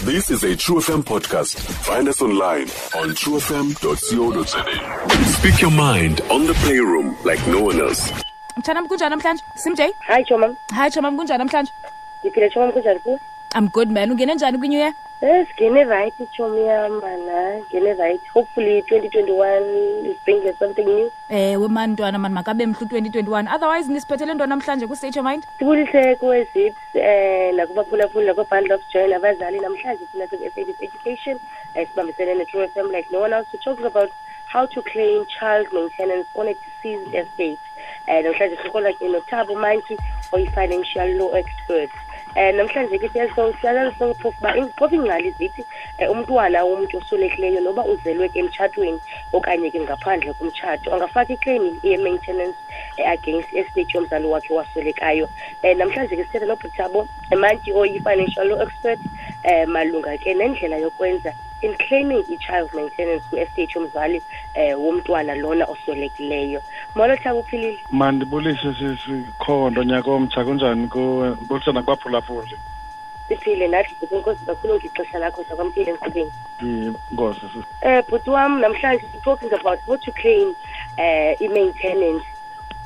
This is a True FM podcast. Find us online on truefm.co.za. Speak your mind on the playroom like no one else. Mtshanam, kunjani namhlanje? Simjay? Hi chomam. Hi chomam, kunjani namhlanje? Ndiphile chomam, kunjani kuwe? I'm good, man. Ungene njani kwi-New Year? Yes, ngene right chomi yam mana, ngene right. Hopefully 2021 is bringing us something new. Ewe man, ntwana man, makabe mhle u-2021. Otherwise nisiphethele ntoni namhlanje ku-State Your Mind? Sibulise kuwe Zips, nakubaphulaphuli nakoo-Bundle of Joy nabazali. Namhlanje thina siku-SABC Education, sibambisene ne-True FM like no one else. We're talking about how to claim child maintenance on a deceased estate. Namhlanje sihola ke noThabo Mantyi, oyi-financial law expert. Namhlanje ke siyazalala sonke phofu uba phofu iingcali zithi umntwana womntu oswelekileyo noba uzelwe ke emtshatweni okanye ke ngaphandle komtshato angafaka iclaim ye-maintenance against estate yomzali wakhe waswelekayo. Namhlanje ke sithetha noBhuti Mantyi oyi-financial law expert malunga ke nendlela yokwenza in claiming i-child maintenance kwi-estate yomzali womntwana lona oswelekileyo. Molo Thabo, uphilile? Mandibulise sisikhondo, nyaka omtsha, kunjani kuwe? Ndibulise nakubaphulaphuli. Siphile nathi, bhuti, enkosi kakhulu ngexesha lakho, sakwamkele enkqubeni. Inkosi, sisi. Bhuti wam, namhlanje we're talking about how to claim i-maintenance,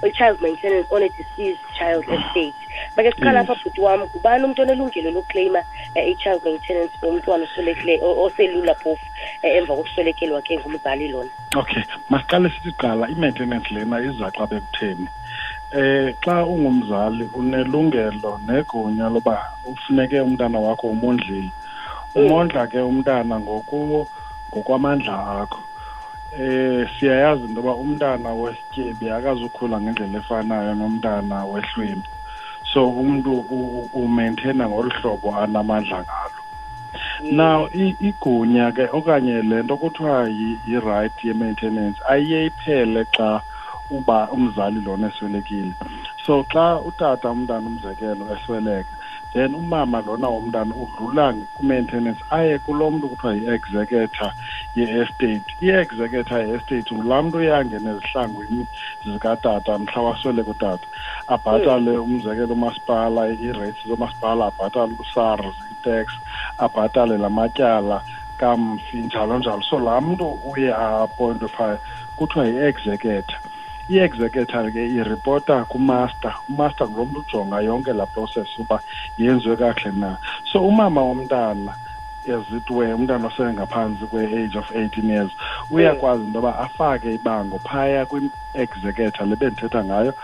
i-child maintenance on a deceased child estate. Make siqala apha, bhuti wam, ngubani umntu onelungelo lokuclaima i-child maintenance for umntwana oswelekileyo, oselula phofu, emva kokuswelekelwa ke ngumzali lona? Okay, masiqale sithi kuqala i-maintenance lena iza xa bekutheni. Xa ungumzali unelungelo negunya loba ufuneke umntana wakho umondlile. Umondla ke umntana ngokwamandla akho. Siyayazi into yoba umntana wesityebi akazukhula ngendlela efanayo nomntana wehlwempu. So umntu umaintaina ngolu hlobo anamandla ngalo. Now igunya ke okanye le nto kuthiwa yi-right ye-maintenance ayiye iphele xa uba umzali lona eswelekile. So xa utata umntana umzekelo esweleka, then umama lona womntana udlula ku-maintenance aye kulo mntu kuthiwa yi-executor ye-estate. I-executor ye-estate ngulaa mntu uyangena ezihlangwini zikatata mhla wasweleka utata, abhatale umzekelo umasipala, ii-rates zomasipala, abhatale uSARS, i-tax, abhatale la matyala kamfi, njalo njalo. So laa mntu uye a-appointwe phaya kuthiwa yi-executor. I-executor ke iripota kumaster. Umaster ngulo mntu ujonga yonke laa process uba yenziwe kakuhle na. So umama womntana, as it were, umntana osengaphantsi kwe-age of 18 years, uyakwazi into yoba afake ibango phaya kwi-executor le bendithetha ngayo.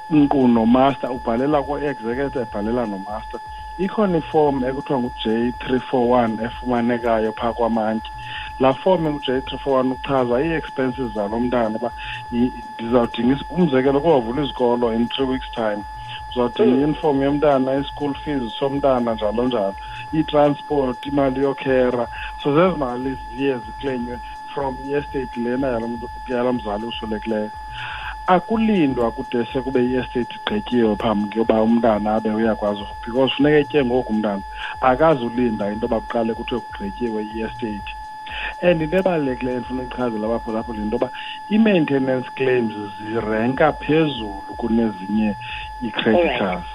Nkqu nomaster, ubhalela kwi-executor, ebhalela nomaster. Ikhona iform ekuthiwa ngu-J three four one efumanekayo phaa kwamantyi. Laa form engu-J three four one uchaza ii-expenses zalo mntana uba ndizawudinga umzekelo kuyovula izikolo in 3 weeks time. Uzawudinga i-uniform yomntana, i-school fees somntana, njalo njalo, i-transport, imali yokhera. So zezi mali ziye ziklenywe from i-estate lena yalo mntu, yalo mzali uswelekileyo. Akulindwa kude sekube i-estate igqityiwe phambi koba umntana abe uyakwazi, because funeka etye ngoku umntana, akazulinda into yoba kuqale kuthiwe kugqityiwe i-estate. And into ebalulekileyo endifuna uyichazela abaphulaphuli yinto yoba i-maintenance claims zirenka phezulu kunezinye ii-creditors.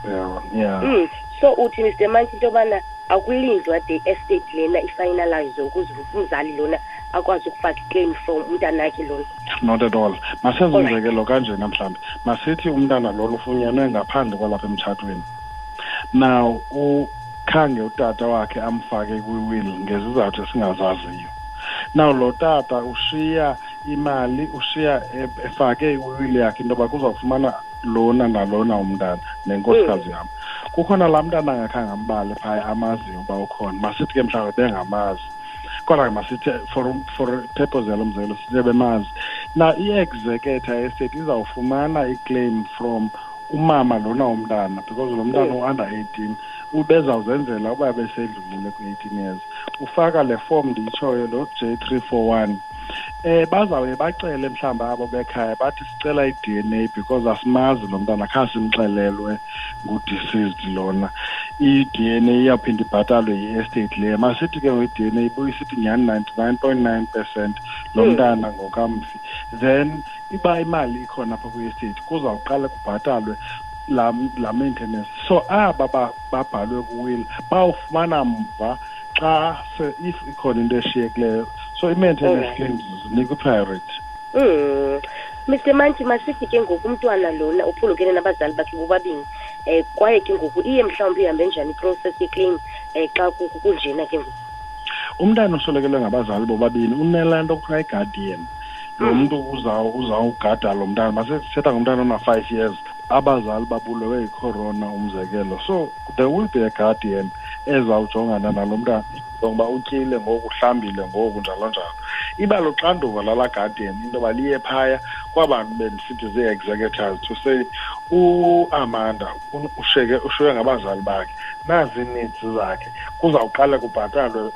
Yeah, yeah. So uthi Mister Mantyi into yobana akulindwa de estate lena ifinalize ukuze umzali lona akwazi ukufaka iclaim from umntanakhe lona? Not at all. Masenze umzekelo kanjena mhlawumbi. Masithi umntana lona ufunyenwe ngaphandle kwalapha emtshatweni. Now ukhange utata wakhe amfake kwi-will ngezizathu esingazaziyo. Now lo tata ushiya imali, ushiya efake iwill yakhe into yoba kuzawufumana lona nalona umntana nenkosikazi yam. Kukhona laa mntana angakhange ambale phaya amaziyo uba ukhona. Masithi ke mhlawumbi bengamazi, kodwa ke masithi for purpose yalo mzekelo sithi bemazi. Now i-executor estate izawufumana i-claim from umama lona womntana, because lo mntana u-under 18, ubezawuzenzela uba besedlulile kwi-18 years. Ufaka le form ndiyitshoyo, lo J three four one. Bazawuye bacele mhlawumbi abo bekhaya bathi sicela i-DNA because asimazi lo mntana, khange simxelelwe ngu-deceased lona. I-DNA iyawuphinda ibhatalwe yi-estate leyo. Masithi ke ngoku i-DNA ibuye isithi nyhani 99.9% lo mntana ngokamfi. Then iba imali ikhona apha kwi-estate, kuzawuqala kubhatalwe la maintenance. So aba babhalwe kuwill bawufumana mva xa if ikhona into eshiyekileyo. So i-maintenance claims zinikwa i-priority. Mr Mantyi, masithi ke ngoku umntwana lona uphulukene nabazali bakhe bobabini, kwaye ke ngoku iye mhlawumbi ihambe njani iprocess yeclaim xa kunjena ke ngoku? Umntana oswelekelwe ngabazali bobabini unelaa nto kuthiwa i-guardian. Lo mntu uzawugada lo mntana. Masithetha ngomntana ona-5 years, abazali babulewe yicorona umzekelo. So there will be a guardian ezawujongana nalo mntana, ngoba utyile ngoku, uhlambile ngoku, njalo njalo. Iba luxanduva lalaa guardian into yoba liye phaya kwabantu bendisithi zii-executors to say uAmanda ushiywe ngabazali bakhe, nazi ii-needs zakhe, kuzawuqala kubhatalwe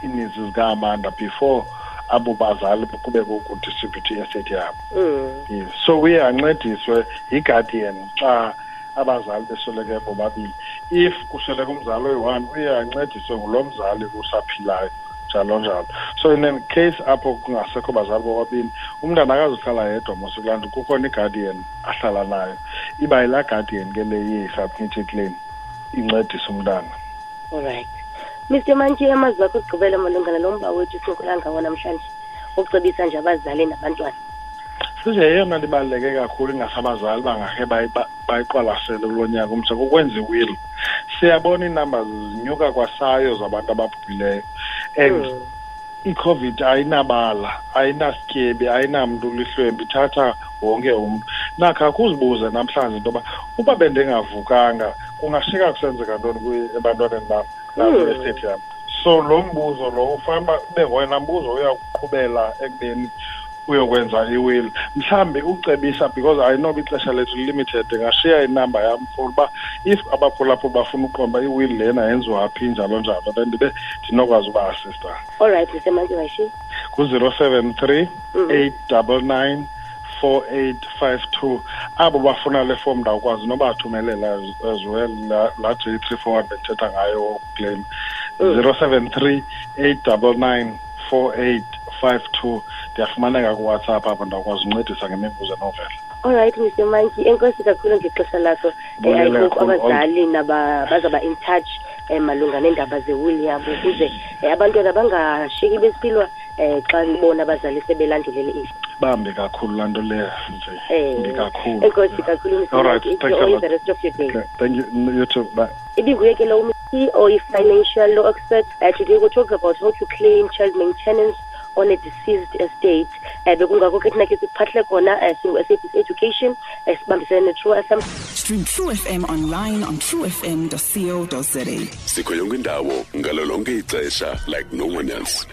ii-needs zika-Amanda before abo bazali kube kudistribute i-estate yabo. Yes. So uye ancediswe yi-guardian xa abazali besweleke bobabini. If kusweleke umzali oyi-one, uye ancediswe ngulo mzali usaphilayo, njalo njalo. So in a case apho kungasekho bazali bobabini, umntana akazuhlala yedwa mos kulaa ndlu, kukhona i-guardian ahlala nayo. Iba yilaa guardian ke le iye isubmit iclaim, incedise umntana. All right. Mr Mantyi, amazwi akho okugqibela malunga nalo mba wethu sincokola ngawo namhlanje, ukucebisa nje abazali nabantwana. Size yeyona nto ibaluleke kakhulu ingasabazali bangakhe bayiqwalasele kulo nyaka umtsha, kukwenza iwill. Siyabona iinumbers zinyuka kwasayo zabantu ababhubhileyo, and iCOVID ayinabala, ayinasityebi, ayinamntu ulihlwempu, ithatha wonke umntu. Nakho akuzibuze namhlanje into yoba uba bendingavukanga kungashiyeka kusenzeka ntoni ebantwaneni bam nakwi-estate yam. So lo mbuzo lo ufanele uba ube ngoyena mbuzo uyakuqhubela ekubeni uyokwenza iwill. Mhlawumbi ucebisa, because I know ixesha lethu limited, ndingashiya inamba yam for uba if abaphulaphuli bafuna uqonda uba iwill lena yenziwa phi, njalo njalo, then ndibe ndinokwazi uba-assista. All right, Mr Mantyi, mayishiye. Ngu-zero seven three, eight double nine, four eight five two. Abo bafuna le form ndawukwazi nobathumelela as well, la J three four one bendithetha ngayo claim. Zero seven three, eight double nine, four eight five two. Ndiyafumaneka kuWhatsApp apho, ndawukwazi uncedisa ngemibuzo enovela. All right, Mr Mantyi, enkosi kakhulu ngexesha lakho. Mbulele I hope kakhulu. abazali bazaba in touch malunga neendaba zewill yabo, ukuze abantwana bangashiyeki besiphilwa xa bona abazali sebelandulele ifa. Bambi kakhulu laa nto leyo nje. Mbi kakhulu. Enkosi kakhulu, Mr All right, Mantyi. thanks a Enjoy lot. the rest of your day. Okay, thank you. You too. Bye. Ibinguye ke lo or financial law expert. Today we'll talk about how to claim child maintenance on a deceased estate. Bekungakho ke thina ke siphahle khona, singu-SABC Education, sibambisene ne-True FM. Stream True FM online on truefm.co.za. Sikho yonke indawo ngalo lonke ixesha like no one else.